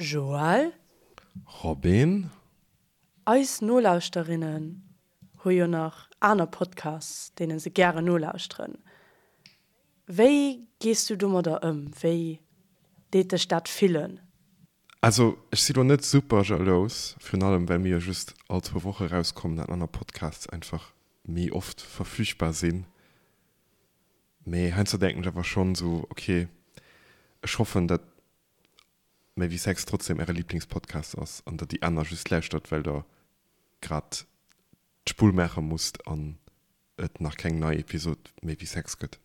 Joël? Robin? Eis Nolauschterinnen hu jo nach aner Podcasts, deene se gären nolauschteren. Wéi gees du domadder ëm? Wéi deet dech dat fillen? Also ech si lo net super jalous, virun allem well mir jo just all zwou Woche rauskommen an aner Podcasts einfach méi oft verfügbar sinn. Mee heiansdo denken ech awer schonn esou, ok, ech hoffen dat Méi wéi Sex trotzdem äre Lieblingspodcast ass an der déi aner just lauschtert well der grad d'Spull maache musst an et nach keng nei Episod Méi wéi Sex gëtt.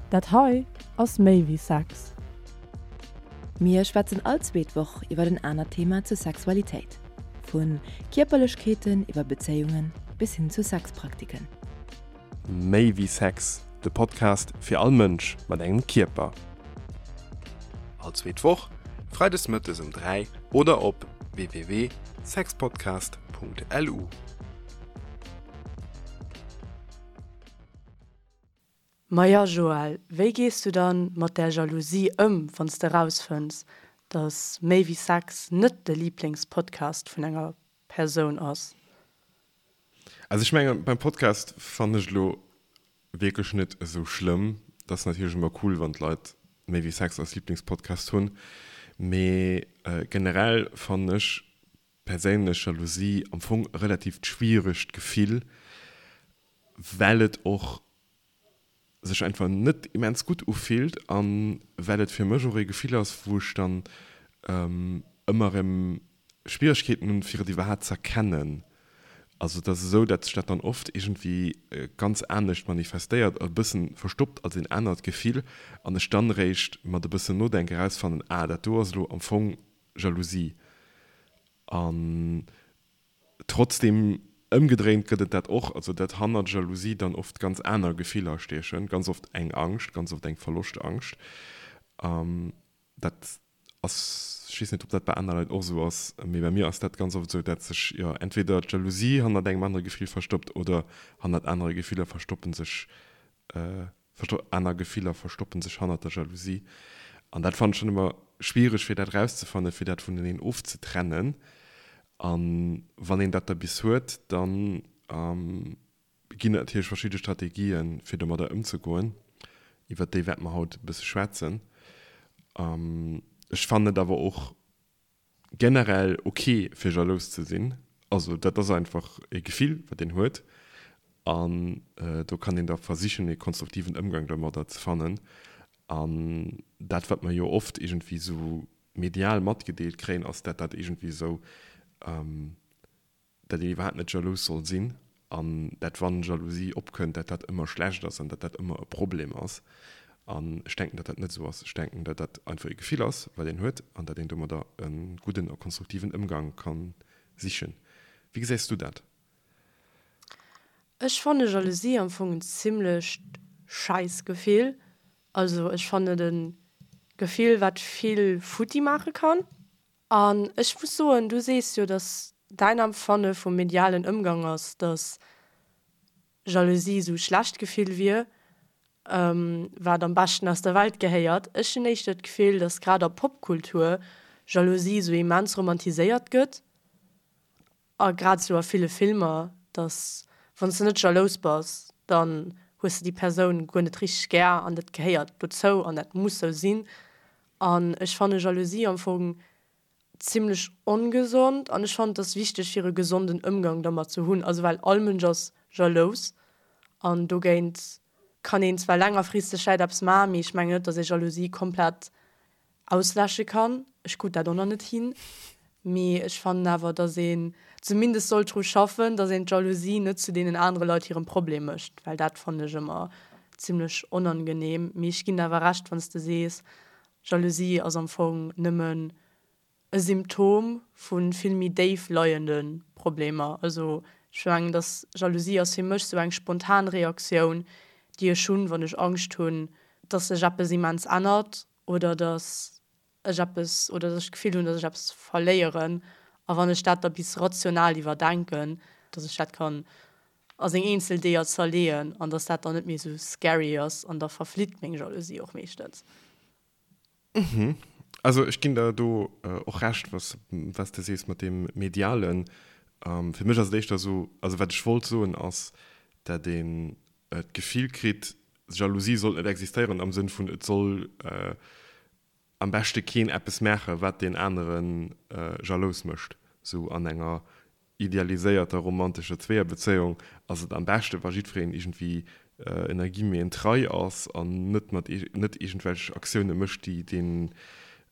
Dat hei ass Méi wéi Sex. Mir schwätzen all zweet Woch iwwer en anert Thema zur Sexualitéit. Vu Kierperlechkeeten iwwer Bezéiungen bis hin zu Sexpraktiken. Méi wéi Sex, de Podcast fir all Mënsch mat engem Kierper. All zweet Woch, freides mëttes um 3 oder op www.sexpodcast.lu. Maja Joël, wéi gees du dann mat där Jalousie ëm, wann s de rausfënns, dass Méi wéi Sex net de Liiblingspodcast vun enger Persoun ass? Also ech mengen beim Podcast fannen ech elo wierklech net esou schlëmm. Et ass natierlech ëmmer cool wann d'Leit méi wéi Sex als Lieblingspodcast hunn, mee generell fannen ech perséinlech Jalousie am Fong e relativt schwieregt Gefill, well et och sech einfach net immens gutt ufillt an well et fir mech och ee Gefill ass, wou ech dann ëmmer erëm Schwieregkeeten hunn, fir et iwwerhaapt ze erkennen. Also et ass esou, datt sech dat dann oft iergendwéi ganz anescht manifestéiert, e bëssen verstoppt als een anert Gefill an ech dann eréischt mat e bëssen Nodenke erausfannen, ah dat do ass elo am Fong Jalousie. An Trotzdem, ëmgedréint gëtt et dat och, also dat hannert Jalousie dann oft ganz aner Gefiller stiechen, ganz oft eng Angscht, ganz oft eng Verloschtangst. Dat ass, ech weess net, ob dat bei aner Leit och esou ass, mee bei mir ass dat ganz oft esou, dat sech, jo, entweder d'Jalousie hannert engem anere Gefill verstoppt oder hannert anere Gefiller verstoppen sech Aner Gefiller verstoppen sech hannert der Jalousie. An dat fannen ech dann ëmmer schwiereg, fir dat erauszefannen, fir dat vuneneen ofzetrennen. A wann een dat da bis huet, da ginn et natierlech verschidde Strategien, fir domadder ëmzegoen. Iwwert déi wäerte mer haut e bësse schwätzen. Ech fannen et awer och generell ok fir jalous ze sinn, also dat ass einfach e Gefill wat een huet an do kann een da versichen e konstruktiven Ëmgang domadder ze fannen an dat wat mer jo oft iergendwéi sou medial matgedeelt kréien ass dat dat iergendwéi sou dat een iwwerhaapt net jalous soll sinn an dat wann Jalousie opkënnt, dat dat ëmmer schlecht ass an dat dat ëmmer e Problem ass. An ech denken, dat dat net esou ass. Ech denken, dat dat einfach e Gefill ass, wat een huet an dat een domadder e gudden a konstruktiven Ëmgang ka sichen. Wéi gesäis du dat? Ech fanne Jalousie am Fong en zimlecht schäiss Gefill. Also ech fannen et e Gefill, wat vill futti maache kann. An ech muss soen, du sees jo, datt däin Empfanne vum medialen Ëmgang ass, datt Jalousie esou e schlecht Gefill wier, wat am beschten aus der Welt gehéiert. Ech hunn éischter d'Gefill, datt grad a Popkultur Jalousie esou immens romantiséiert gëtt a grad esou a ville Filmer, datt wann s de net jalous bass, dann hues de déi Persoun guer net richteg gär an dat gehéiert dozou an dat muss sou sinn. An ech fanne Jalousie am Fong zimlech ongesond an ech fannen et ass wichteg fir e gesonden Ëmgang dermat ze hunn. Also well all Mënsch ass jalous an dogéint kann een zwar längerfristeg vläit eppes maachen, mee ech mengen net, datt ee Jalousie komplett ausläsche kann. Ech krut dat och nach net hin, mee ech fannen awer, datt een zumindest sollt dru schaffen, datt een d'Jalousie net zu deenen anere Leit hirem Problem mécht, well dat fannen ech ëmmer zimlech onangenehm. Mee ech ginn der awer Recht, wann s de sees, Jalousie ass am Fong nëmmen e Symptom vu vill méi déif leiende Problemer. Also ech mengen, datt Jalousie ass fir mech sou eng spontan Reaktioun, déi ech hunn, wann ech Angscht hunn, datt sech eppes immens ännert oder datt ech eppes oder datt ech d'Gefill hunn, datt ech eppes verléieren. A wann ech dat da bis rational iwwerdenken, datt ech dat kann a seng eenzel Deeër zerleeën an datt dat dann net méi esou scary ass an da verflitt meng Jalousie och meeschtens. Mhm. Also ech ginn der do och Recht, was was de sees mat deem Medialen. Fir mech ass et éischter esou, also wat ech wollt soen ass, dat een d'Gefill kritt, Jalousie sollt net existéieren am Sënn vun et soll am beschte keen eppes maachen, wat deen anere jalous mécht. Sou an enger idealiséierter romantescher Zweeërbezéiung ass et am beschte wa jiddwereen iergendwéi ënner Guillemeten trei ass an net mat net iergendwelch Aktioune mécht, déi deen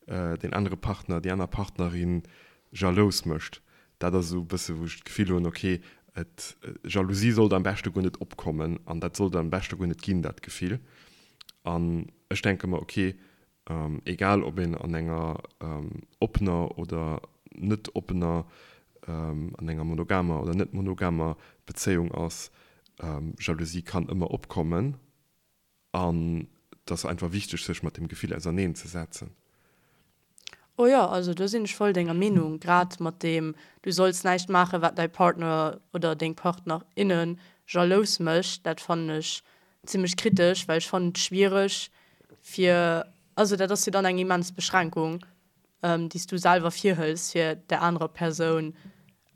deen anere Partner, déi aner Partnerin jalous mécht. Dat ass esou e bësse wou ech d'Gefill hunn, ok, et Jalousie sollt am beschte guer net opkommen an dat sollt am beschte guer net ginn, dat Gefill. An ech denke mer, ok, Egal ob een an enger oppener oder net oppener, an enger monogamer oder net monogamer Bezéiung ass, Jalousie kann ëmmer opkommen an et ass einfach wichteg sech mat dem Gefill auserneen ze setzen. Oh jo, also do sinn ech voll denger Meenung, grad mat deem du solls näischt maachen wat däi Partner oder deng Partnerinne jalous mécht, dat fannen ech zimmlech kritesch, well ech fannen et schwiereg fir, also dat ass jo dann eng immens Beschränkung, déi s du selwer virhëls, fir där anerer Persoun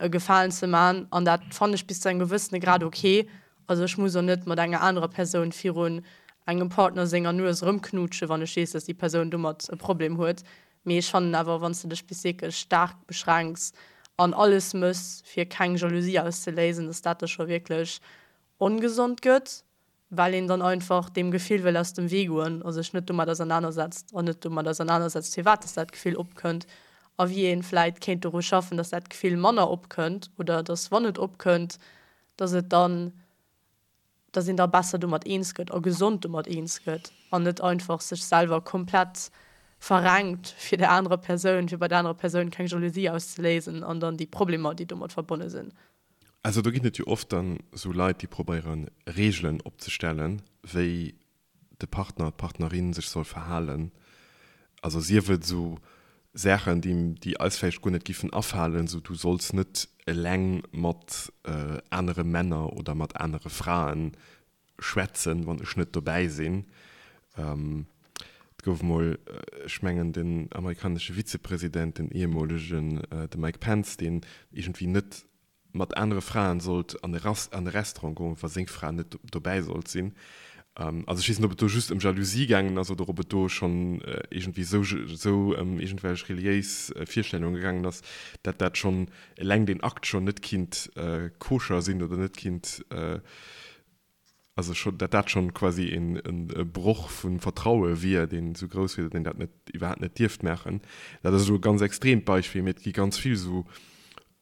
e Gefalen ze man. An dat fannen ech bis zu engem gewëssene Grad ok. Also ech muss och net mat enger anerer Persoun virun engem Partner senger Nues erëmknuutschen, wann ech weess, dass déi Persoun domat e Problem huet. Mee ech fannen awer, wann s de dech bis wierklech staark beschränks an alles mëss, fir keng Jalousie auszeléisen, dass dat da scho wierklech ongesond gëtt, well een dann einfach deem Gefill wëll aus dem Wee goen a sech net domat ausernanersetzt an net domat ausernanersetzt, firwat dass dat Gefill opkënnt a wéi ee vläit kéint doru schaffen, dass dat Gefill manner opkënnt oder dass, wann et opkënnt, dass et dann, dass een da besser domat eens gëtt a gesond domat eens gëtt an net einfach sech selwer komplett verrenkt fir der anerer Persoun, fir bei der anerer Persoun keng Jalousie auszeléisen an dann déi Problemer, déi domat verbonne sinn. Also do ginn et jo oft dann esou Leit, déi probéieren Reegelen opzestellen, wéi de Partner, d'Partnerin sech soll verhalen. Also sief et esou Saachen, déi déi eis vläicht guer net giffen afalen, esou du solls net eleng mat anere Männer oder mat anere Fraen schwätzen, wann ech net dobäi sinn. Et gouf emol, ech mengen den amerikanesche Vizepresident, den ehemolegen, de Mike Pence, deen iergendwéi net mat anere Fraen sollt an e Restaurant goen, wa seng Fra net dobäi sollt sinn. Also ech weess net, ob et do just ëm Jalousie gaangen ass oder ob et do schonn iergendwéi esou esou ëm iergendwelch reliéis Virstellunge gaangen ass, dat dat schonn eleng deen Akt schonn net kinnt koscher sinn oder net kinnt also scho dat dat schonn quasi een e Broch vu Vertraue wier, deen esou grouss wier, datt een dat net iwwerhaapt net dierft maachen. Dat ass elo e ganz extreemt Beispill, mee et gi ganz vill esou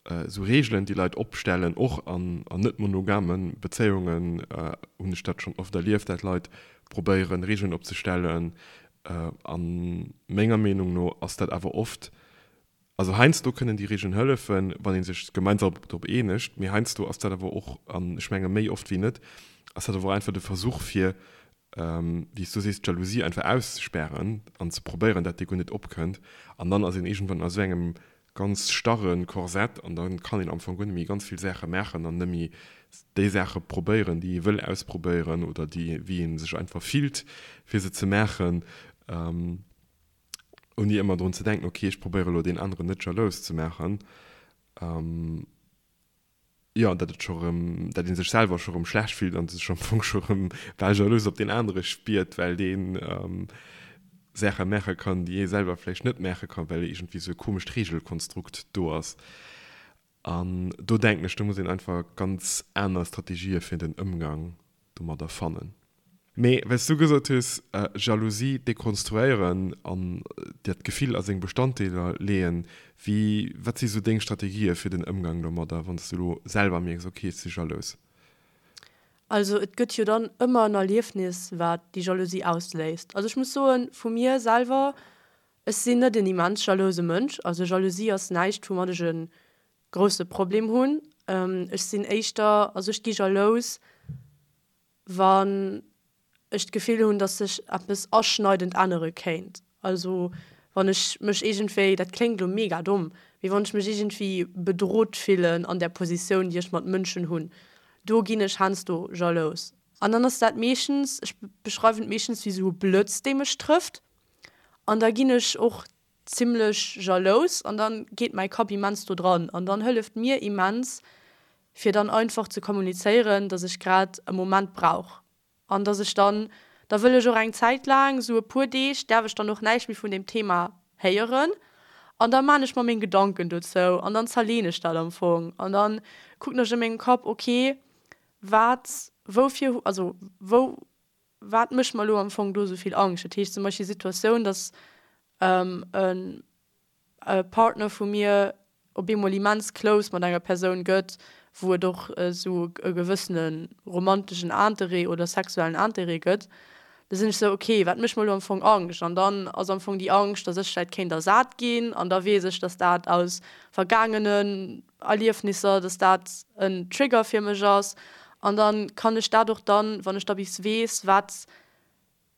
esou Reegelen, déi Leit opstellen, och an an net monogame Bezéiungen hunn ech dat schonn oft erlieft, dat Leit probéieren, Reegelen opzestellen. A menger Meenung no ass dat awer oft Also heiansdo kënnen déi Regeln hëllefen, wann ee sech gemeinsam drop eenegt, mee heiansdo ass dat awer och, an ech menge méi oft wéi net, ass dat awer och einfach de Versuch fir, wéi s du sees, d'Jalousie einfach auszespären an ze probéieren, dat déi guer net opkënnt. An dann ass een iergendwann a sou engem ganz starre Korsett an da kann een am Fong guer net méi ganz vill Saache maachen an net méi déi Saache probéieren, déi ee wëll ausprobéieren oder déi, wéi ee sech einfach fillt, fir se ze maachen. Ouni ëmmer drun ze denken, ok, ech probéiere elo deen aneren net jalous ze maachen, jo, datt et scho rëm, datt ee sech selwer scho rëm schlecht fillt an sech am Fong scho rëm bal jalous op deen anere spiert, well dee Saache maache kann, déi ee selwer vläicht net maache kann, well iergendwéi esou e komescht Reegelkonstrukt do ass. An do denken ech, do muss een einfach ganz aner Strategië fir den Ëmgang domadder fannen. Mee well s du gesot hues, Jalousie dekonstruéieren an dat Gefill a seng Bestanddeeler leeën, wéi, wat si sou deng Strategië fir den Ëmgang domadder, wann s du elo selwer mierks, ok, ech si jalous? Also et gëtt jo dann ëmmer en Erliefnis, wat déi Jalousie ausléist. Also ech muss soen, vu mir selwer, Ech sinn net en immens jalouse Mënsch, also Jalousie ass näischt woumat ech e grousse Problem hunn. Ech sinn éischter, also ech gi jalous wann ech d'Gefill hunn, datt sech eppes aschneidend ännere kéint. Also wann ech mech iergendwéi, dat kléngt elo mega domm, mee wann ech mech iergendwéi bedrot fillen an där Positioun déi ech mat Mënschen hunn, do ginn ech heiansdo jalous. An dann ass dat meeschtens, ech beschreiwen et meeschtens wéi esou e Blëtz dee mech trëfft. An da ginn ech och. zimmlech jalous an dann geet mäi Kapp immens do dran an dann hëlleft mir immens fir dann einfach ze kommunizéieren, dass ech grad e Moment brauch an dass ech dann, da wëll ech och eng Zäit laang, sou e puer Deeg däerf ech dann och näischt méi vun deem Thema héieren an da maan ech mer meng Gedanken dozou an dann zerleen ech dat am Fong an dann kucken ech a mengem Kapp, ok wat, woufir, also wou, wat mécht mer elo am Fong do esou vill Angscht? Dat heescht zum Beispill Situatioun, dass e Partner vu mir op eemol immens close mat enger Persoun gëtt, wou et och esou e gewëssene romanteschen Interêt oder sexuellen Interêt gëtt, da sinn ech esou, ok, wat mécht mer elo am Fong Angscht? An dann ass am Fong déi Angscht, dass ech vläicht kéint ersat ginn an da weess ech, dass dat aus vergaangenen Erliefnisser, dass dat en Trigger fir mech ass an dann kann ech dat och dann, wann ech da bis weess, wat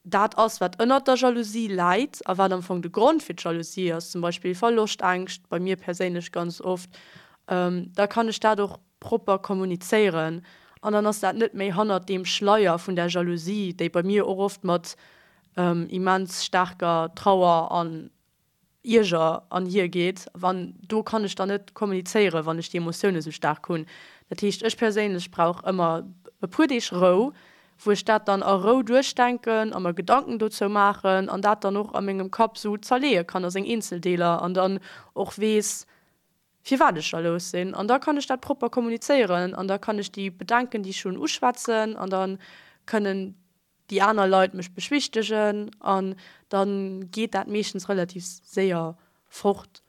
dat ass, wat ënnert der Jalousie läit a wat am Fong de Grond fir d'Jalousie ass, zum Beispill Verloschtängscht, bei mir perséinlech ganz oft, da kann ech dat och propper kommunizéieren an dann ass dat net méi hannert deem Schleier vun der Jalousie, déi bei mir och oft mat immens staarker Trauer an Ierger an hier geet, wann do kann ech dann net kommunizéieren, wann ech déi Emotioune sou staark hunn. Dat heescht, ech perséinlech brauch ëmmer e puer Deeg Rou, wou ech dat dann a Rou duerchdenken a mer Gedanken dozou maachen an dat dann och a mengem Kapp sou zerleeë kann a seng Eenzeldeeler an dann och weess, firwat ech jalous sinn. An da kann ech dat propper kommunizéieren an da kann ech déi Bedenken, déi ech hunn, uschwätzen an da kënnen déi aner Leit mech beschwichtegen an dann geet dat meeschtens relativ séier fort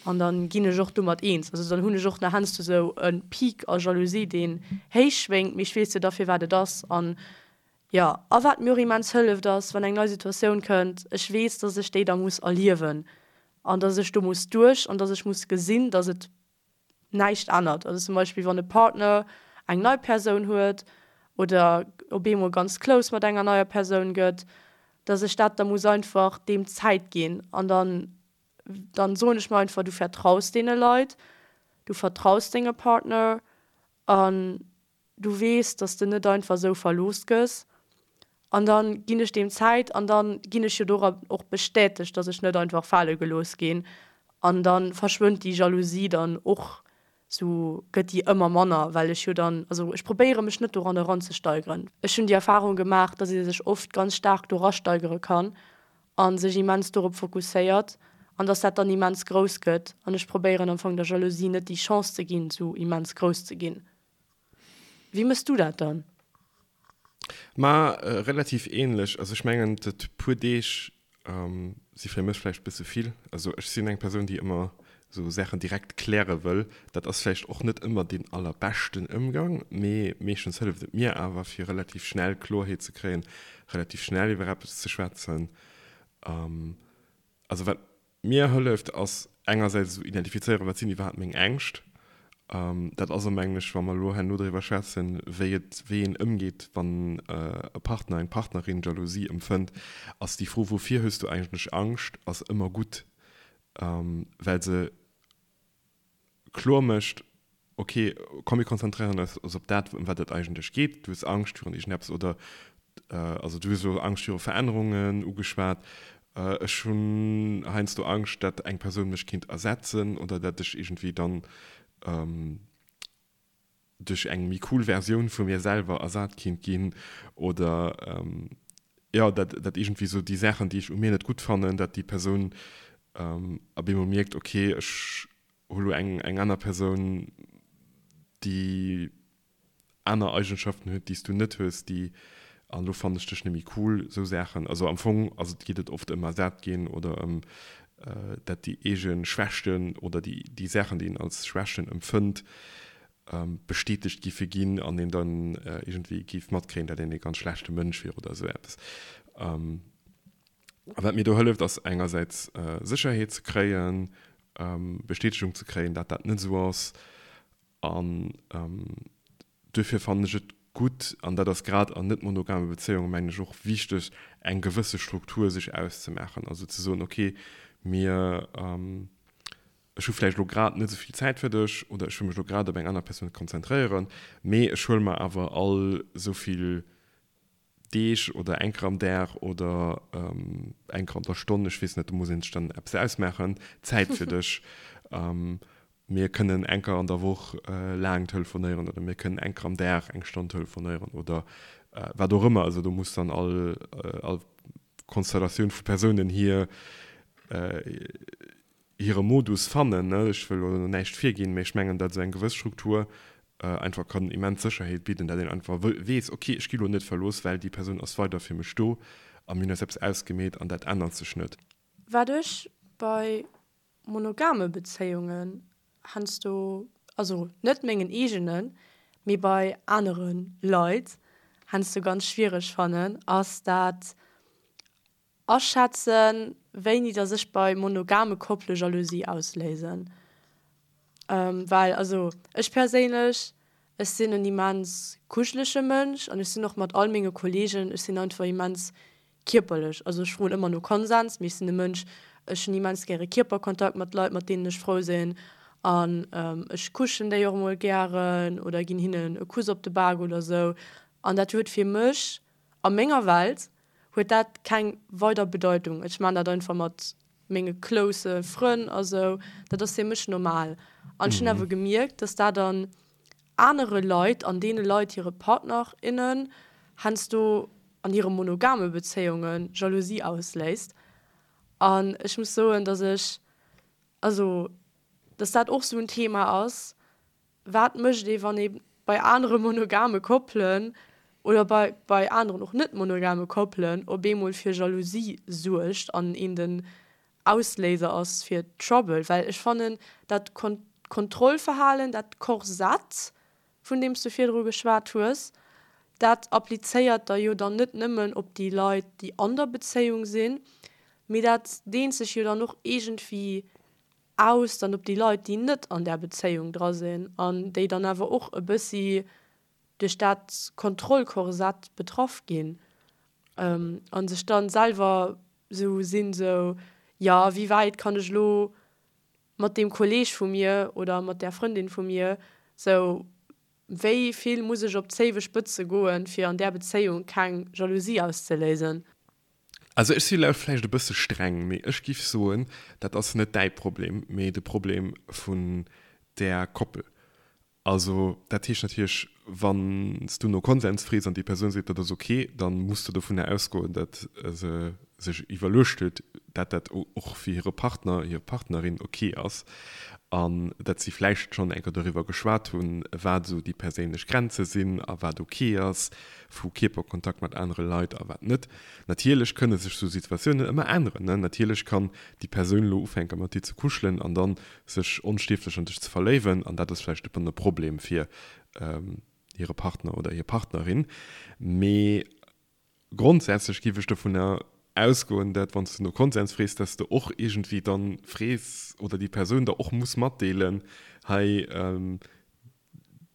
an dann ginn ech och domat eens. Also dann hunn ech och nach heiansdo sou e Peak a Jalousie deen héich schwéngt, mee ech weess jo da firwat et ass an jo. A wat mir och immens hëlleft ass wann eng nei Situatioun kënnt, ech weess dass ech déi da muss erliewen an dass ech do muss duerch an dass ech muss gesinn dass et näischt ännert. Also zum Beispill wann e Partner eng nei Persoun huet oder op eemol ganz close mat enger neier Persoun gëtt, dass ech dat da muss einfach deem Zäit ginn an dann dann soen ech mir einfach, du vertraus deene Leit, du vertraus denge Partner an Du weess, dass de net einfach esou verlooss gëss. An da ginn ech deem Zäit an da ginn ech jo dora och bestätegt, dass ech net einfach fale gelooss ginn. An da verschwënnt déi Jalousie dann och, sou gëtt déi ëmmer manner, well ech jo dann, also ech probéiere mech net doran eranzesteigeren. Ech hunn déi Erfarung gemaach, dass ee sech oft ganz staark do rasteigere kann a sech immens dorop fokusséiert an dass dat dann immens grouss gëtt. An ech probéieren am Fong der Jalousie net déi Chance ze ginn, sou immens grouss ze ginn. Wéi mëss du dat dann? Ma relativ ähnlech. Also ech mengen dat puer Deeg si fir mech vläicht bësse vill. Also ech sinn eng Persoun déi ëmmer esou Saachen direkt kläre wëll. Dat ass vläicht och net ëmmer deen allerbeschten Ëmgang, mee meeschtens hëlleft et mir awer fir relativ schnell Kloerheet ze kréien, relativ schnell iwwer eppes ze schwätzen. Also wat Mir hëlleft ass engersäits esou identifizéieren, wat sinn iwwerhaapt meng Ängscht. Dat ass am Englesch, wa mer elo herno driwwer schwätzen, wéi et, wéi een ëmgeet, wann e Partner, eng Partnerin Jalousie empfënnt, ass déi Fro, wouvir hues du eigentlech Angscht, ass ëmmer gutt, well se kloer mécht, ok, komm mir konzentréieren eis op dat, ëm wat et eigentlech geet. Du hues Angscht virun iergendeppes oder also du hues elo Angscht viru Verännerungen ugeschwat. Ech hunn heiansdo Angscht, dat eng Persoun mech kéint ersetzen oder dat ech iergendwéi dann duerch eng méi cool Versioun vu mir selwer ersat kinnt ginn oder jo, dat dat iergendwéi sou déi Saachen, déi ech u mir net gutt fannen, dat déi Persoun op eemol mierkt, ok, ech hu lo eng eng aner Persoun, déi aner Eigenschaften huet, déi s du net hues, déi an elo fannen ech dech net méi cool, sou Saachen. Also am Fong ass et geet et oft ëm ersat ginn oder ëm dat déi eege Schwächten oder déi déi Saachen, déi een als Schwächten empfënnt, bestätegt giffe ginn an een dann iergendwéi géif matkréien, dat een ee ganz schlechte Mënsch wier oder esou eppes. A wat mir do hëlleft, ass engersäits Sécherheet ze kréien, Bestätegung ze kréien, dat dat net esou ass an Duerfir fannen ech et gutt, an dat ass grad an net monogame Bezéiungen, mengen ech, och wichteg, eng gewësse Struktur sech auszemaachen. Also ze soen, okay, mir, ech hu vläicht elo grad net esou vill Zäit fir dech oder ech wëll mech elo grad op eng aner Persoun konzentréieren, mee ech huele mer awer all esou vill. Deeg oder eng Kéier am Dag oder eng Kéier an der Stonn, ech weess net, do muss een sech dann eppes ausmaachen, Zäit fir dech. Mir kënnen eng Kéier an der Woch laang telefonéieren oder mir kënnen eng Kéier am Dag eng Stonn telefonéieren oder wat och ëmmer. Also do muss dann all all Konstellatioun vu Persounen hir hire Modus fannen. Ech wëll elo näischt virginn, mee ech mengen, datt esou eng gewëss Struktur einfach kann immens Sécherheet bidden, datt een einfach weess, ok, ech gi lo net verlooss, well déi Persoun ass weider fir mech do a mir hunn eis eppes ausgemeet an dat ännert sech net. Wat ech bei monogame Bezéiungen heiansdo, also net mengen eegenen, mee bei anere Leit heiansdo ganz schwiereg fannen, ass dat Aschätzen, wéini dass ech bei monogame Koppele Jalousie ausléisen. Well also ech perséinlech, ech sinn en immens kuschelege Mënsch an ech sinn och mat all menge Kollegen, ech sinn einfach immens kierperlech. Also ech froen ëmmer no Konsens, mee ech sinn e Mënsch, ech hunn immens gäre Kierperkontakt mat Leit, mat deenen ech frou sinn an ech kuschen déi och emol gären oder ginn hinnen e Kuss op de Bak oder sou. An dat huet fir mech a menger Welt huet dat keng weider Bedeitung. Ech maan dat einfach mat menge close Frënn a sou, dat ass fir mech normal. An ech hunn awer gemierkt, dass dat an anere Leit, an deene Leit hire Partner, innen heiansdo an hire monogame Bezéiunge Jalousie ausléist. An ech muss soen, dass ech, also dass dat och sou en Thema ass, Wat mécht ee wann ee bei anere monogame Koppelen oder bei bei aneren och net monogame Koppelen op eemol fir Jalousie suergt an een den Ausléiser ass fir Trouble? Well ech fannen dat Kontrollverhalen, dat Korsett vun deem s du virdru geschwat hues, dat applizéiert der jo dann net nëmmen op déi Leit déi an der Bezéiung sinn, mee dat deent sech jo dann och iergendwéi aus dann op déi Leit, déi net an där Bezéiung dra sinn an déi dann awer och e bëssi duerch dat Kontrollkorsett betraff ginn a sech dann selwer esou sinn, esou, jo, wéi wäit kann ech elo mat deem Kolleeg vu mir oder mat där Frëndin vu mir esou, wéi vill muss ech op d'zéiwe Spëtze goen, fir an där Bezéiung keng Jalousie auszeléisen? Also ech si elo vläicht e bësse streng, mee ech giff soen, dat ass net däi Problem, mee de Problem vun där Koppel. Also dat heescht natierlech, wann s du no Konsens frees an déi Persoun seet, dat ass ok, da muss de dovunner ausgoen, datt se sech iwwerluecht huet, dat dat och fir hire Partner, hir Partnerin ok ass an datt si vläicht schonn eng Kéier doriwwer geschwat hunn, wat esou déi perséinlech Grenze sinn a wat ok ass vu Kierperkontakt mat anere Leit a wat net. Natierlech kënne sech sou Situatiounen ëmmer änneren, ne? Natierlech kann déi Persoun elo ufänke mat dir ze kuschelen an dann sech onstierflech an dech ze verléiwen an dat ass vläicht e e Problem fir hire Partner oder hir Partnerin. Mee grondsätzlech géif ech dovunner ausgoen, dat wann s de no Konsens frees, dass de och iergendwéi dann frees oder déi Persoun der och muss matdeelen, hei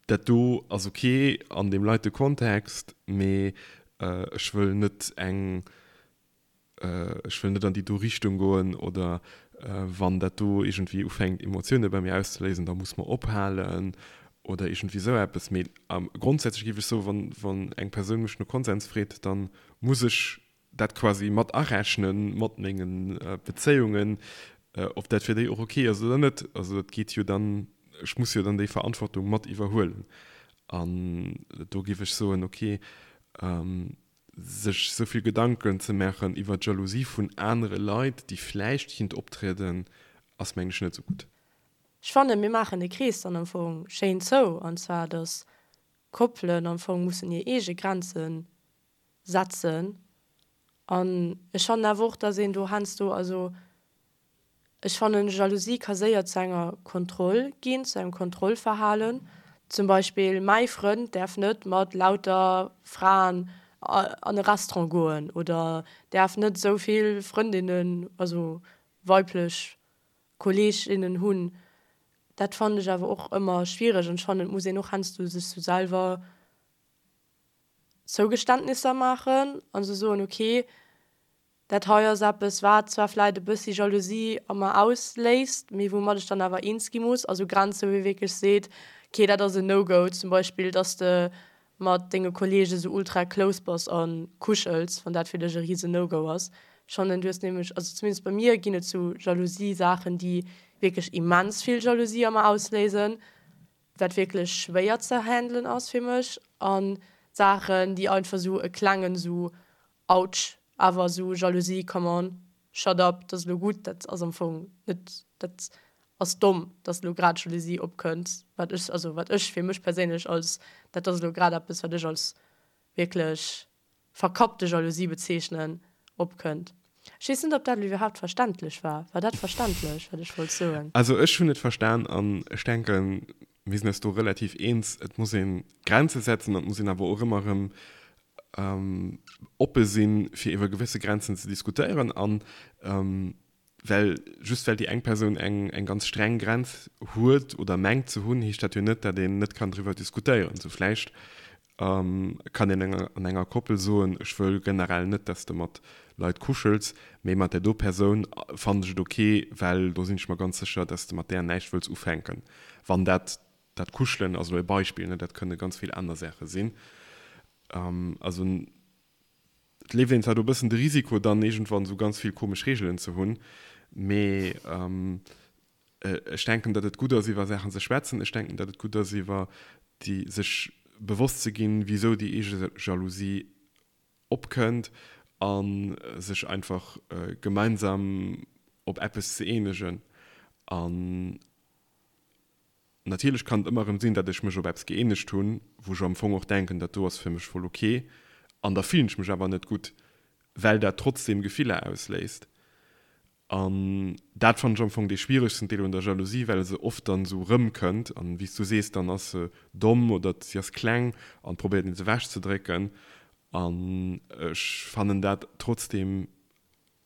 dat do ass ok an deem leite Kontext, mee ech wëll net eng, ech wëll net an déi do Richtung goen oder wann dat do iergendwéi ufänkt Emotioune bei mir auszeléisen, da muss mer ophalen oder iergendwéi esou eppes. Mee grondsätzlech géif ech soen, wann eng Persoun mech no Konsens freet, da muss ech dat quasi mat arechnen mat mengen Bezéiungen, ob dat fir déi och ok ass oder net. Also dat geet jo dann, ech muss jo dann déi Verantwortung mat iwwerhuelen. An do géif ech soen, ok, sech esou vill Gedanken ze maachen iwwer d'Jalousie vun anere Leit, déi vläicht kinnt optrieden, ass mengen ech net esou gutt. Ech fannen, mir maachen de Krees dann am Fong schéin zou, an zwar, dass Koppelen am Fong mussen hir eege Grenzen setzen an ech fannen awer och, dass een do heiansdo, also ech fannen Jalousie ka séier zu enger Kontroll ginn, zu engem Kontrollverhalen. Zum Beispill mäi Frënd däerf net mat lauter Fraen an e Restaurant goen oder däerf net esou vill Frëndinnen, also weiblech Kolleeginnen hunn. Dat fannen ech awer och ëmmer schwiereg an ech fannen et muss een och heiansdo sech sou selwer Zougeständnisser maachen an se soen, ok, dat hei ass eppes, wat zwar vläit e bëssi Jalousie a mer ausléist, mee woumat ech dann awer eens gi muss. Also Grenze wou ee wierklech seet, ok, dat ass en No-Go, zum Beispill, dass de. mat denge Kollege sou ultra close bass a kuschels, wann dat fir dech e rise No-Go ass. Ech fannen, du hues nämlech, also zumindest bei mir ginn et sou Jalousie-Saachen, déi wierklech immens vill Jalousie a mer ausléisen, wat wierklech schwéier ze handelen ass fir mech, an Saachen, déi einfach sou e klengen sou Autsch, awer sou Jalousie, come on, shut up, dat ass elo gutt, dat ass am Fong net, dat ass domm, dass elo grad Jalousie opkënnt, wat ech, also wat ech fir mech perséinlech als, dat ass elo grad eppes, wat ech als wierklech verkappte Jalousie bezeechnen, opkënnt. Ech weess net, ob dat elo iwwerhaapt verständlech war. War dat verständlech, wat ech wollt soen? Also ech hunn et verstan an ech denken, mir sinn eis do relativ eens, et muss ee Grenze setzen an et muss een awer och ëmmer erëm oppe sinn, fir iwwer gewësse Grenzen ze diskutéieren an well just well déi eng Persoun eng eng ganz streng Grenz huet oder mengt ze hunn, heescht dat jo net, datt een net kann driwwer diskutéieren. Sou vläicht kann een enger an enger Koppel soen, ech wëll generell net, datt s de mat Leit kuschels, mee mat där do Persoun fannen ech et ok, well do sinn ech mer ganz sécher, datt s de mat där näischt wëlls ufänken. Wann dat dat Kuschelen ass elo e Beispill, ne, dat kënne ganz vill aner Saache sinn. Also et leeft een zwar do e bëssen de Risiko, dann iergendwann esou ganz vill komesch Reegelen ze hunn, mee ech denken, datt et gutt ass, iwwer Saachen ze schwätzen. Ech denken, datt et gutt ass, iwwer déi sech bewosst ze ginn, wisou déi eege Jalousie opkënnt a sech einfach gemeinsam op eppes ze eenegen. An Natierlech kann et ëmmer erëm sinn, datt ech mech op eppes gëeenegt hunn, wou ech am Fong och denken, dat do ass fir mech voll ok, an da fillen ech mech awer net gutt, well dat trotzdeem Gefiller ausléist. An dat fannen ech am Fong dee schwieregsten Deel un der Jalousie, well se oft dann esou erëmkënnt an, wéi s du sees, dann ass se domm oder si ass kleng an probéiert een se ewechzedrécken. An ech fannen dat trotzdeem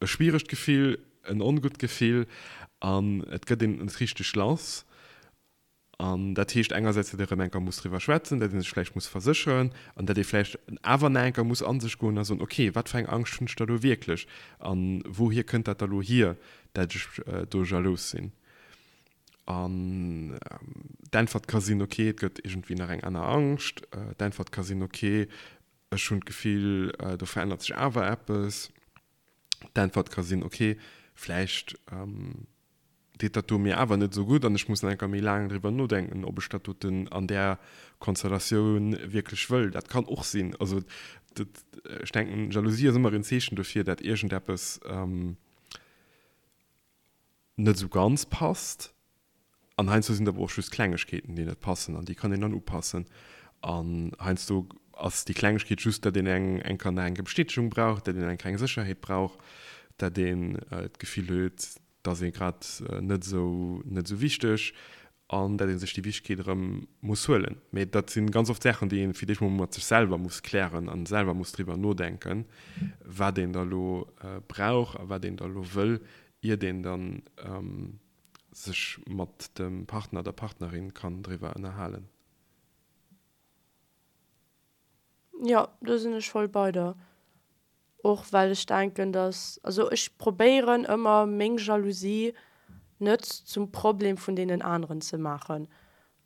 E schwieregt Gefill, en ongutt Gefill an et gëtt een net richteg lass. An dat heescht engersäits, datt ee rëm eng Kéier muss driwwer schwätzen, datt ee sech vläicht muss versécheren an datt ee vläicht awer nach eng Kéier muss a sech goen a soen, okay, wat fir eng Angscht hunn ech da lo wierklech a wouhier kënnt dat da lo hier, datt ech do jalous sinn? An d'Äntwert ka sinn, okay, et gëtt iergendwéi nach eng aner Angscht. D'Äntwert ka sinn, okay, ech hunn d'Gefill, do verännert sech awer eppes. D'Äntwert ka sinn, ok, vläicht deet dat do mir awer net esou gutt an ech muss nach eng Kéier méi laang driwwer nodenken, ob ech dat doten an där Konstellatioun wierklech wëll. Dat kann och sinn. Also dat, ech denken, Jalousie ass ëmmer en Zeechen dofir, dat iergendeppes net esou ganz passt. An heiansdo sinn et awer och just Klengegkeeten, déi net passen an déi kann een dann upassen. An heiansdo ass déi Klengegkeet just, datt een eng eng Kéier nach eng Bestätegung brauch, datt een eng kleng Sécherheet brauch, datt een d'Gefill huet, datt ee grad net esou net esou wichteg an datt ee sech déi Wichtegkeet erëm muss huelen. Mee dat si ganz oft Saachen, déi ee fir d'éischt mol mat sech selwer muss klären a selwer muss driwwer nodenken, wat een da lo brauch a wat een da lo wëll, iert een dann sech mat dem Partner, der Partnerin kann driwwer ënnerhalen. Jo, do sinn ech voll bei der. Och well ech denken, dass, also ech probéieren ëmmer meng Jalousie net zum Problem vun deenen aneren ze maachen.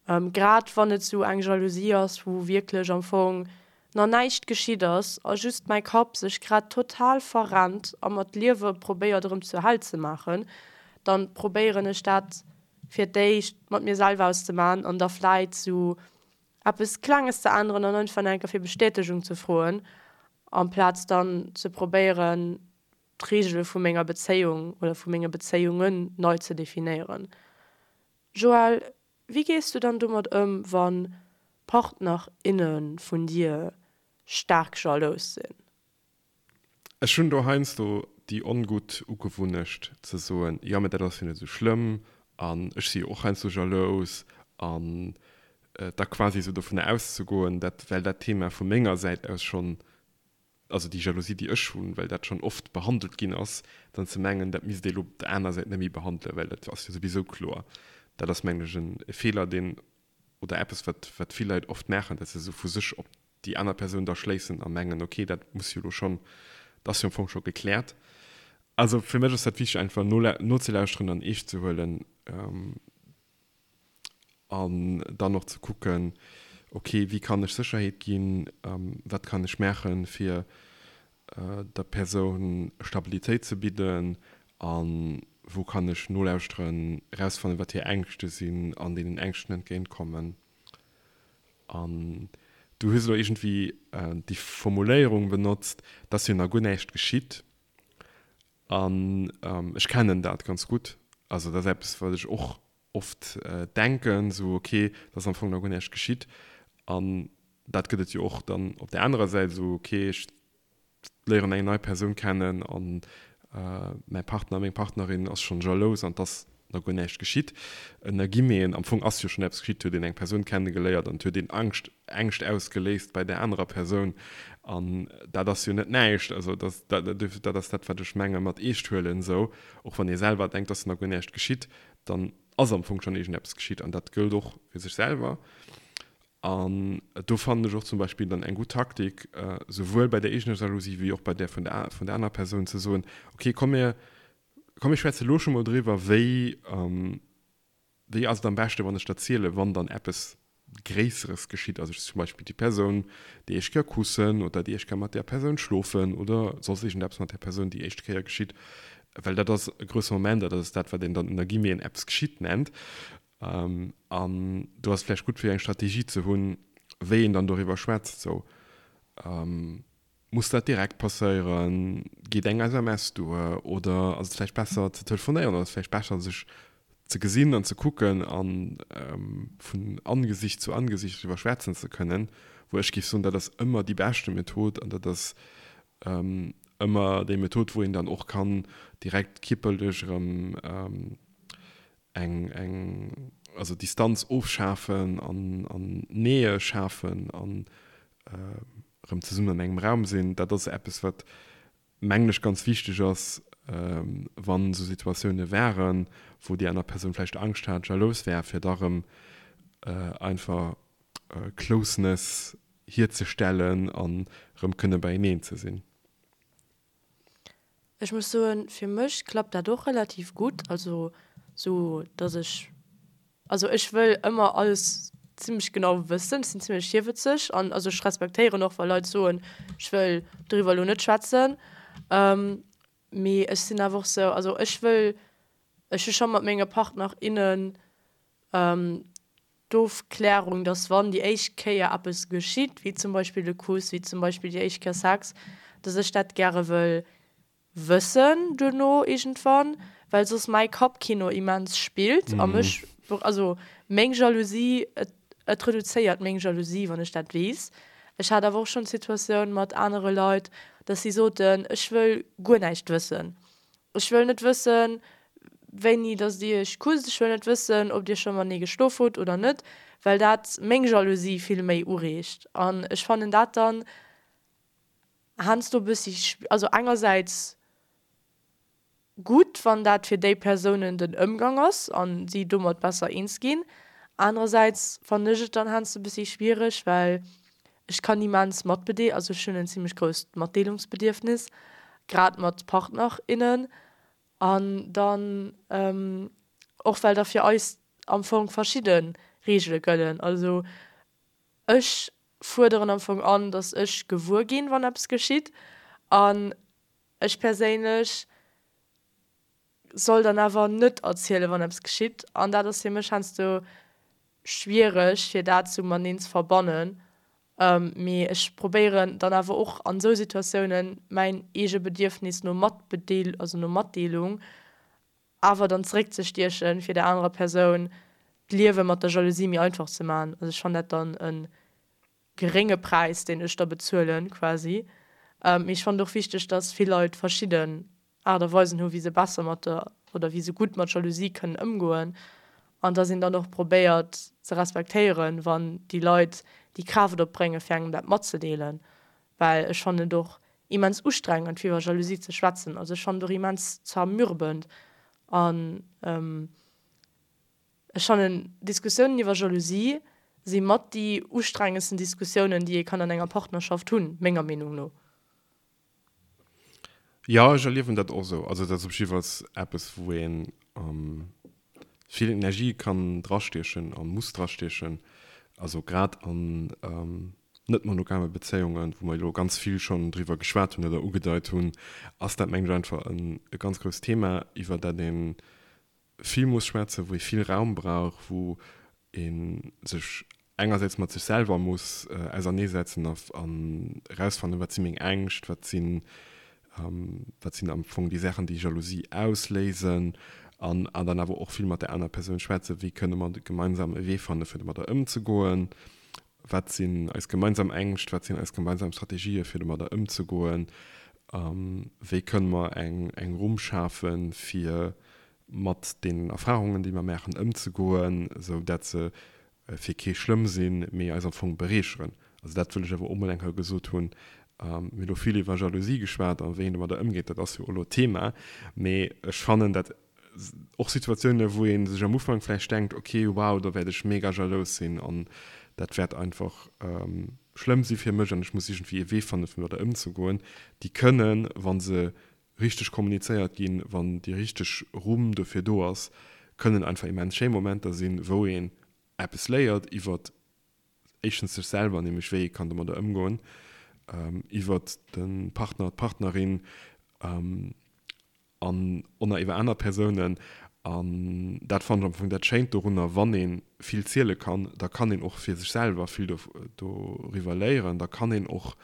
Grad wann et sou eng Jalousie ass, wou wierklech am Fong na näischt geschitt ass a just mäi Kapp sech grad total verrennt a mer d'Liewe probéiert erëm zur Hell ze maachen, dann probéieren ech dat fir d'éischt mat mir selwer auszemaachen an da vläit sou eppes Klenges ze änneren an einfach nach eng Kéier fir Bestätegung ze froen, amplaz dann ze probéieren d'Reegele vu menger Bezéiung oder vu menge Bezéiungen nei ze definéieren. Joël, wéi gees du dann domat ëm, wa Partner, inne vun dir staark jalous sinn? Ech hunn do heiansdo déi ongutt Ugewunnecht ze soen, jo mä dat ass jo net esou schlëmm an ech si jo och heiansdo jalous an da quasi esou dovunner auszegoen, dat well dat Thema vu menger Säit aus schonn also déi Jalousie, déi ech hunn, well dat schonn oft behandelt ginn ass, dann ze mengen, dat misst ee lo op der aner Säit net méi behandelen, well dat ass jo souwisou kloer. Dat ass, mengen ech, e Feeler, deen, oder eppes, wat, wat vill Leit oft maachen, dass se esou vu sech op déi aner Persoun da schléissen a mengen, okay, dat muss jo lo schonn, dat ass jo am Fong scho gekläert. Also fir mech ass dat wichteg, einfach nozelauschteren an eescht ze huelen. An dann och ze kucken. Ok, wéi kann ech Sécherheet ginn? Wat kann ech maachen, fir der Persoun Stabilitéit ze bidden? A wou kann ech nolauschteren, erausfannen, wat hir Ängschte sinn an deenen Ängschten entgéintkommen? An du hues elo iergendwéi déi Formuléierung benotzt, dass jo nach guer näischt geschitt. An ech kennen dat ganz gutt. Also dat ass eppes, wat ech och oft denken, esou ok, et ass am Fong nach guer näischt geschitt. An dat gëtt et jo och dann op där anerer Säit, esou ok, ech léieren eng nei Persoun kennen an mäi Partner, meng Partnerin ass schonn jalous an et ass nach guer näischt geschitt. Ënner Guillemeten, am Fong ass jo schonn eppes geschitt, et huet een eng Persoun kennegeléiert an et huet een Angscht, Ängscht ausgeléist bei där anerer Persoun an dat ass jo net näischt. Also dat, dat ass dat, wat ech menge mat eescht huelen esou. Och wann ee selwer denkt, et ass nach guer näischt geschitt, dann ass am Fong schonn iergendeppes geschitt an dat gëllt och fir sech selwer. An do fannen ech och zum Beispill dann eng gutt Taktik, souwuel bei der eegener Jalousie wéi och bei där vun der vun der anerer Persoun ze soen, okay, komm mir komm mir schwätze lo scho mol driwwer, wéi wéi ass et am beschte wann ech der zielen, wann dann eppes Gréisseres geschitt, also zum Beispill déi Persoun déi éischt Kéier kussen oder déi éischt Kéier mat där Persoun schlofen oder soss iergendeppes mat där Persoun déi éischt Kéier geschitt, well dat ass e grousse Moment a dat ass dat, wat een dann ënner Guillemeten eppes geschitt nennt. An do ass et vläicht gutt fir eng Strategie ze hunn, wéi een dann doriwwer schwätzt. Sou, muss dat direkt passéieren? Geet eng SMS duer? Oder ass et vläicht besser ze telefonéieren? Oder ass et vläicht besser sech ze gesinn an ze kucken a vun Angesicht zu Angesicht driwwer schwätzen ze kënnen? Wou ech géif soen, dat ass ëmmer déi beschte Method an dat ass ëmmer déi Method, wou een dann och kann direkt kierperlech erëm eng, eng, also Distanz ofschafen an, an Nähe schafen an erëm zesummen an engem Raum sinn. Dat ass eppes, wat, mengen ech, ganz wichteg ass, wann esou Situatioune waren, wou déi aner Persoun vläicht Angscht hat, jalous war, fir da erëm einfach Closeness hierzestellen an erëm kënne beieneen ze sinn. Ech muss soen, fir mech klappt dat och relativ gutt, also sou dass ech, also ech wëll ëmmer alles zimmlech genau wëssen, ech sinn zimmlech virwëtzeg an also ech respektéieren och wa Leit soen, ech wëll doriwwer elo net schwätzen, mee ech sinn awer och sou, also ech wëll, ech hu scho mat menge Partner, innen D'Ofklärung, dass wann déi éischt Kéier eppes geschitt, wéi zum Beispill de Kuss, wéi zum Beispill déi éischt Kéier Sex, dass ech dat gäre wëll wëssen duerno iergendwann, well soss mäi Kappkino immens spillt a mech, also meng Jalousie, et et reduzéiert meng Jalousie, wann ech dat weess. Ech hat awer och schonn d'Situatioun mat anere Leit, dass si soten, ech wëll guer näischt wëssen. Ech wëll net wëssen, wéini dass dir iech kusst, ech wëll net wëssen, ob dir scho matenee geschlof hutt oder net, well dat meng Jalousie vill méi ureegt. An ech fannen dat dann heiansdo e bëssi, also engersäits gutt, wann dat fir déi Persounen den Ëmgang ass an si domat besser eens ginn, anerersäits fannen ech et dann heiansdo e bëssi schwiereg, well Ech kann immens matbedee, also ech hunn en zimmlech grousst Matdeelungsbedierfnis, grad mat Partner, innen. An dann och well da fir eis am Fong verschidde Reegele gëllen. Also ech fuerderen am Fong an, datt ech gewuer ginn, wann eppes geschitt. An ech perséinlech soll dann awer net erzielen, wann eppes geschitt. An dat ass fir mech heiansdo schwiereg, fir dat sou mateneen ze verbannen. Mee ech probéieren dann awer och an esou Situatiounen mäin eege Bedierfnis no Matbedeel, also no Matdeelung awer dann zeréckzestiechen, fir der anerer Persoun d'Liewe mat der Jalousie méi einfach ze maachen. Also ech fannen dat dann e gerénge Präis, deen ech da bezuelen quasi. Mee ech fannen et och wichteg, dass vill Leit verschidden Aart a Weisen hu wéi se besser mat der oder wéi se gutt mat Jalousie kënnen ëmgoen an dass een dann och probéiert ze respektéieren, wann déi Leit déi Kraaft opbréngen, fir engem dat matzedeelen, well ech fannen et och immens ustrengend fir iwwer Jalousie ze schwätzen. Also ech fannen et och immens zermürbend an ech fannen Diskussiounen iwwer Jalousie si mat déi ustrengendsten Diskussiounen, déi ee kann an enger Partnerschaft hunn, menger Meenung no. Jo, ech erliewen dat och esou. Also dat ass op jiddefalls eppes, wou ee vill Energie kann drastiechen a muss drastiechen. Also grad an net monogame Bezéiungen, wou mer elo ganz vill schonn driwwer geschwat hunn oder ugedeit hunn, ass dat mengen ech einfach e ganz grousst Thema, iwwer dat ee vill muss schwätzen, wou ee vill Raum brauch, wou ee sech engersäits mat sech selwer muss auserneesetzen an erausfannen, wat si meng Ängscht, wat sinn wat sinn am Fong déi Saachen, déi Jalousie ausléisen an an dann awer och vill mat der aner Persoun schwätzen, wéi kënne mer gemeinsam e Wee fanne fir domadder ëmzegoen, wat sinn eis gemeinsam Ängscht, wat sinn eis gemeinsam Strategië fir domadder ëmzegoen, wéi kënne mer eng eng Rumm schafe fir mat deenen Erfahrungen, déi mer maachen, ëmzegoen, esou dat se fir kee schlëmm sinn, mee eis am Fong bereecheren. Also dat wëll ech awer och mol eng Kéier gesot hunn. Mir hunn elo vill iwwer Jalousie geschwat a wéi een domadder ëmgeet, dat ass jo och elo d'Thema. Mee ech fannen dat och Situatiounen, wou ee sech am Ufank vläicht denkt, ok, wow, do wäert ech mega jalous sinn an dat wäert einfach schlëmm si fir mech an ech muss iergendwéi e Wee fannen, fir domadder ëmzegoen, déi kënnen, wa se richteg kommunizéiert ginn, wann déi richteg Rumm dofir do ass, kënnen einfach immens schéi Momenter sinn, wou een eppes léiert iwwert éischtens sech selwer, nämlech wéi ee kann domadder ëmgoen, iwwert de Partner, d'Partnerin an och nach iwwer aner Persounen. An dat fannen ech am Fong dat Schéint dorunner, wann ee vill ziele kann, da kann een och fir sech selwer vill doriwwer léieren, da kann een och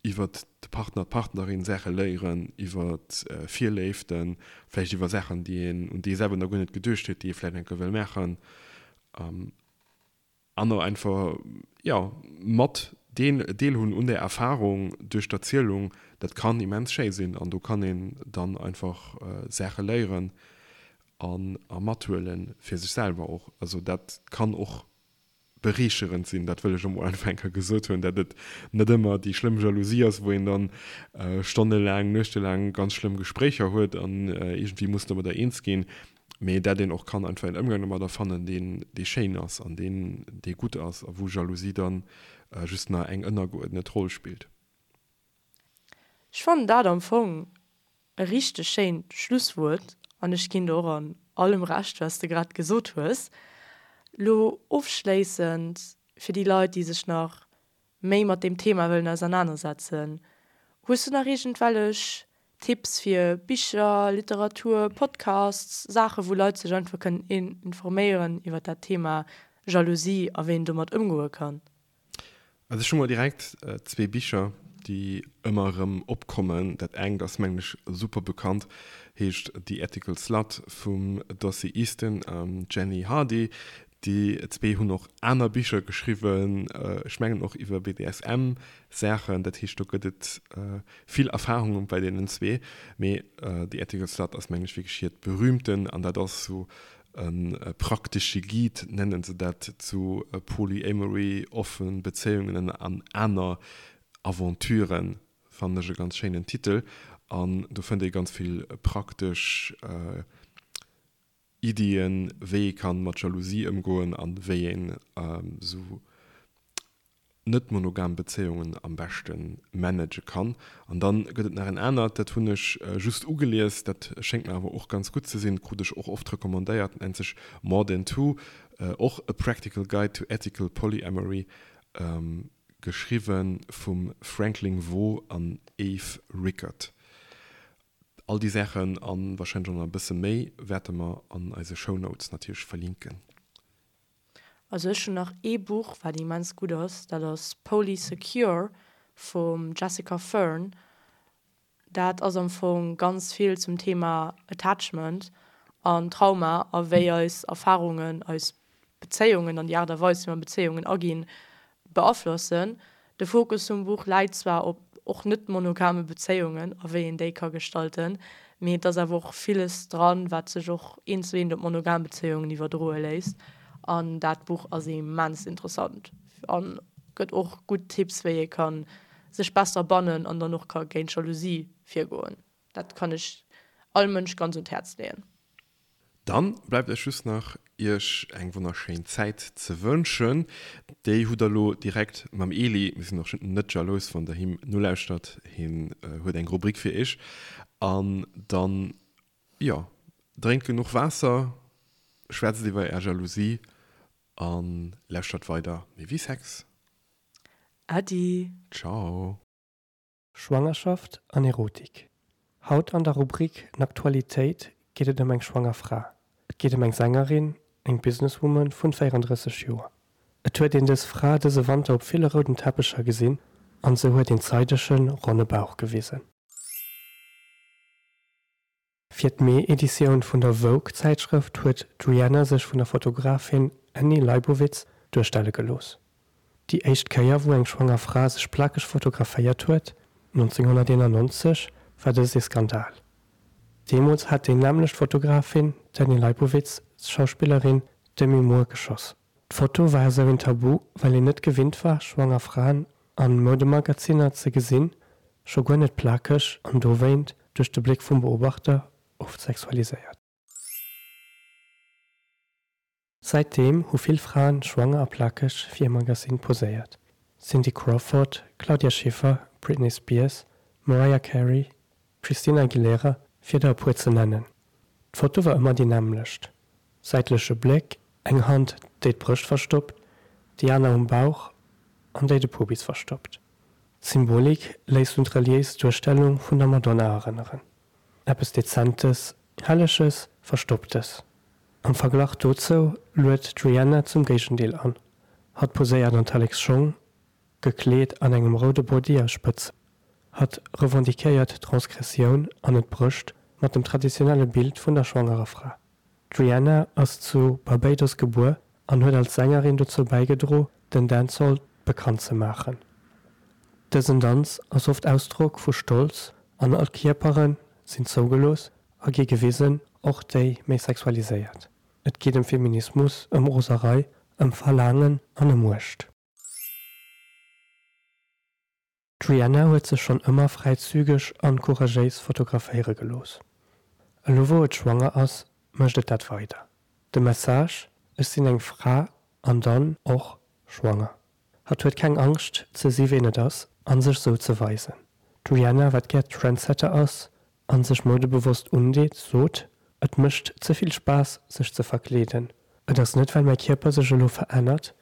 iwwert de Partner, d'Partnerin Saache léieren, iwwert Virléiften, vläicht iwwer Saachen, déi een, un déi ee selwer nach guer net geduecht huet, déi ee vläicht eng Kéier wëll maachen. An och einfach, jo, mat deel, deelhunn un där Erfarung duerch d'Erzielung, dat kann immens schéi sinn an do kann een dann einfach Saache léieren an a mathuelen, fir sech selwer och. Also dat kann och bereecherend sinn, dat wëll ech emol einfach eng Kéier gesot hunn, dat et net ëmmer déi schlëmm Jalousie ass, wou een dann stonnelaang, nuechtelaang ganz schlëmm Gespréicher huet an iergendwéi muss domadder eens ginn, mee dat een och kann einfach en Ëmgang domadder fannen, deen, dee schéin ass an deen, dee gutt ass a wou Jalousie dann just nach eng ënnergeuerdnet Roll spillt. Ech fannen dat am Fong E richteg schéint Schlusswuert an ech ginn der och an allem Recht wat s de grad gesot hues. Lo ofschléissend fir déi Leit déi sech nach méi mat deem Thema wëllen ausernanersetzen, hues du nach iergendwellech Tipps fir Bicher, Literatur, Podcasts, Saache wou Leit sech einfach kënnen informéieren iwwer dat Thema Jalousie a wéi een domat ëmgoe kann? Also ech hu mol direkt zwee Bicher, déi ëmmer erëm opkommen. Dat engt ass mengen ech super bekannt, heescht The Ethical Slut vum Dossie Easton a Jenny Hardy. Déi zwee hunn och aner Bicher geschriwwen, ech mengen och iwwer BDSM-Saachen. Dat heescht do gëtt et vill Erfarunge bei deenen zwee. Mee The Ethical Slut ass mengen ech wierklech hiert berühmten an dat ass sou E praktesche Guide nennen se dat zu Polyamory, offen Bezéiungen an aner Aventuren, fannen ech e ganz schéinen Titel. An do fënnt ee ganz vill praktesch Iddien, wéi ee kann mat Jalousie ëmgoen an wéi een esou net monogam Bezéiungen am beschte manage kann. An dann gëtt et nach en anert, dat hunn ech just ugelies, dat schéngt mer awer och ganz gutt ze sinn, krut ech och oft recommandéiert, nennt sech More Than Two, och A Practical Guide to Ethical Polyamory, geschriwwe vum Franklin Veaux an Eve Rickert. All déi Saachen a warscheinlech och nach e bësse méi wäerte mer an eise Shownotes natierlech verlinken. Also ech hunn nach ee Buch wat immens gutt ass, dat ass Polysecure vum Jessica Fern. Dat ass am Fong ganz vill zum Thema Attachment an Trauma a wéi eis Erfarungen eis Bezéiungen an déi Aart a Weis wéi mer Bezéiungen aginn beaflossen. De Fokus vum Buch läit zwar op och net monogame Bezéiungen a wéi een déi ka gestalten, mee et ass awer och villes dran, wat sech och eent zu eent op monogam Bezéiungen iwwerdroe léisst. An dat Buch ass immens interessant a gëtt och gutt Tipps, wéi ee ka sech besser bannen an dann och ka géint Jalousie virgoen. Dat kann ech all Mënsch ganz un d'Häerz leeën. Dann bleift eis just nach iech eng wonnerschéin Zäit ze wënschen. Déi hutt der lo direkt mam Eli. Mir sinn och net jalous wann der him nolauschtert, hien huet eng Rubrik fir iech. An dann, jo, drénkt genuch Waasser, schwätzt iwwer är Jalousie. An lauschtert weider méi wéi Sex. Äddi. Ciao. Schwangerschaft an Erotik. Haut an der Rubrik Naktualitéit geet et ëm eng schwanger Fra. Et geet ëm eng Sängerin, eng Businesswoman vun 34 Joer. Et huet een dës Fra dëse Wanter op ville rouden Teppecher gesinn an se huet een zeidegen, ronne Bauch gewisen. Fir d'Mee-Editioun vun der Vogue-Zäitschrëft huet d'Rihanna sech vun der Fotografin Annie Leibovitz duerstelle gelooss. Déi éischt Kéier wou eng schwanger Fra sech plakeg fotograféiert huet, 1991, war dëst ee Skandal. Deemools hat déi nämmlecht Fotografin, d'Annie Leibovitz, d'Schauspillerin Demi Moore geschoss. D'Foto war esou een Tabu, well een net gewinnt war, schwanger Fraen an Moudemagazinner ze gesinn, scho guer net plakeg an dowéint duerch de Bléck vum Beobachter oft sexualiséiert. Säitdeem hu vill Fraen schwanger a plakeg fir e Magazin poséiert, Cindy Crawford, Claudia Schiffer, Britney Spears, Mariah Carey, Christina Aguilera, fir der e puer ze nennen. D'Foto war ëmmer déi nämmlecht, säitleche Bléck, eng Hand déi d'Brëscht verstoppt, déi aner um Bauch an déi de Pubis verstoppt. D'Symbolik léisst un d'reliéis Duerstellung vun der Madonna erënneren. Eppes Dezentes, Helleges, Verstopptes. Am Verglach dozou luet d'Rihanna zum Géigendeel an. Hatt poséiert an Tallek's-Schong, gekleet an engem roude Body aus Spëtzen. Hatt revendiquéiert d'Transgressioun an et brécht mat dem traditionelle Bild vun der schwangerer Fra. D'Rihanna ass zu Barbados gebuer an huet als Sängerin dozou bäigedro den Dancehall bekannt ze maachen. Dësen Danz ass oft Ausdrock vu Stolz an all Kierpere sinn zougelooss a gi gewisen, och déi méi sexualiséiert. Et geet ëm Feminismus, ëm Roserei, ëm Verlaangen an ëm Muecht. D'Rihanna huet sech schonn ëmmer fräizügeg an couragéis fotograféiere gelooss. Elo wou et schwanger ass, mécht et dat weider. De Message, Ech sinn eng Fra an dann och schwanger. Hatt huet keng Angscht ze si ween et ass an sech sou ze weisen. D'Rihanna, wat gär Trendsetter ass an sech moudebewosst undeet, sot, Et mécht ze vill Spaass sech ze verkleeden. Et ass net well mäi Kierper sech elo verännert,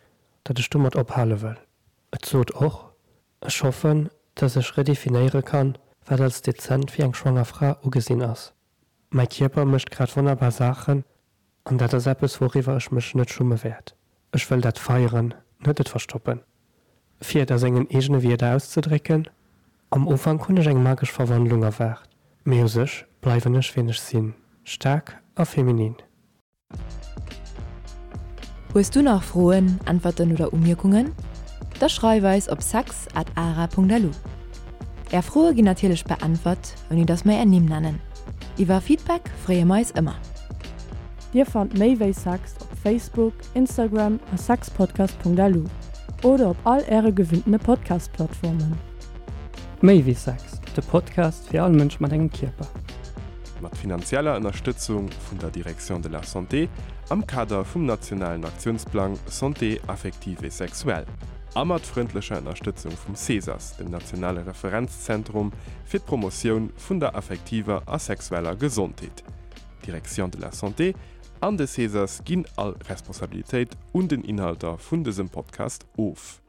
datt ech domat ophale wëll. Et sot och, Ech hoffen, dass ech redefinéiere kann, wat als dezent fir eng schwanger Fra ugesinn ass. Mäi Kierper mécht grad wonnerbar Saachen an dat ass eppes, wouriwwer ech mech net schumme wäert. Ech wëll dat feieren, net et verstoppen. Fir et a sengen eegene Wierder auszedrécken, Am Ufank hunn ech eng magesch Verwandlung erwaart, mee u sech bleiwen ech wien ech sinn, staark a feminin. Hues du nach Froen, Äntwerten oder Umierkungen? Da schreif eis op sex at ara.lu. Är Froe ginn natierlech beäntwert, ouni dass mer är Nimm nennen. Iwwer Feedback freeë mer eis ëmmer. Dir fannt méi wéi Sex op Facebook, Instagram a sexpodcast.lu oder op all äre gewinntene Podcast-Plattformen. Méi wéi Sex, de Podcast fir all Mënsch mat engem Kierper. Mat finanzieller Ënnerstëtzung vun der Direction de la Santé am Kader vum nationalen Aktiounsplang Santé affective et sexuelle a mat frëndlecher Ënnerstëtzung vum CESAS, dem nationale Referenzzentrum fir d'Promotioun vun der affektiver a sexueller Gesondheet. D'Direction de la Santé an de CESAS ginn all Responsabilitéit un den Inhalter vun dësem Podcast of.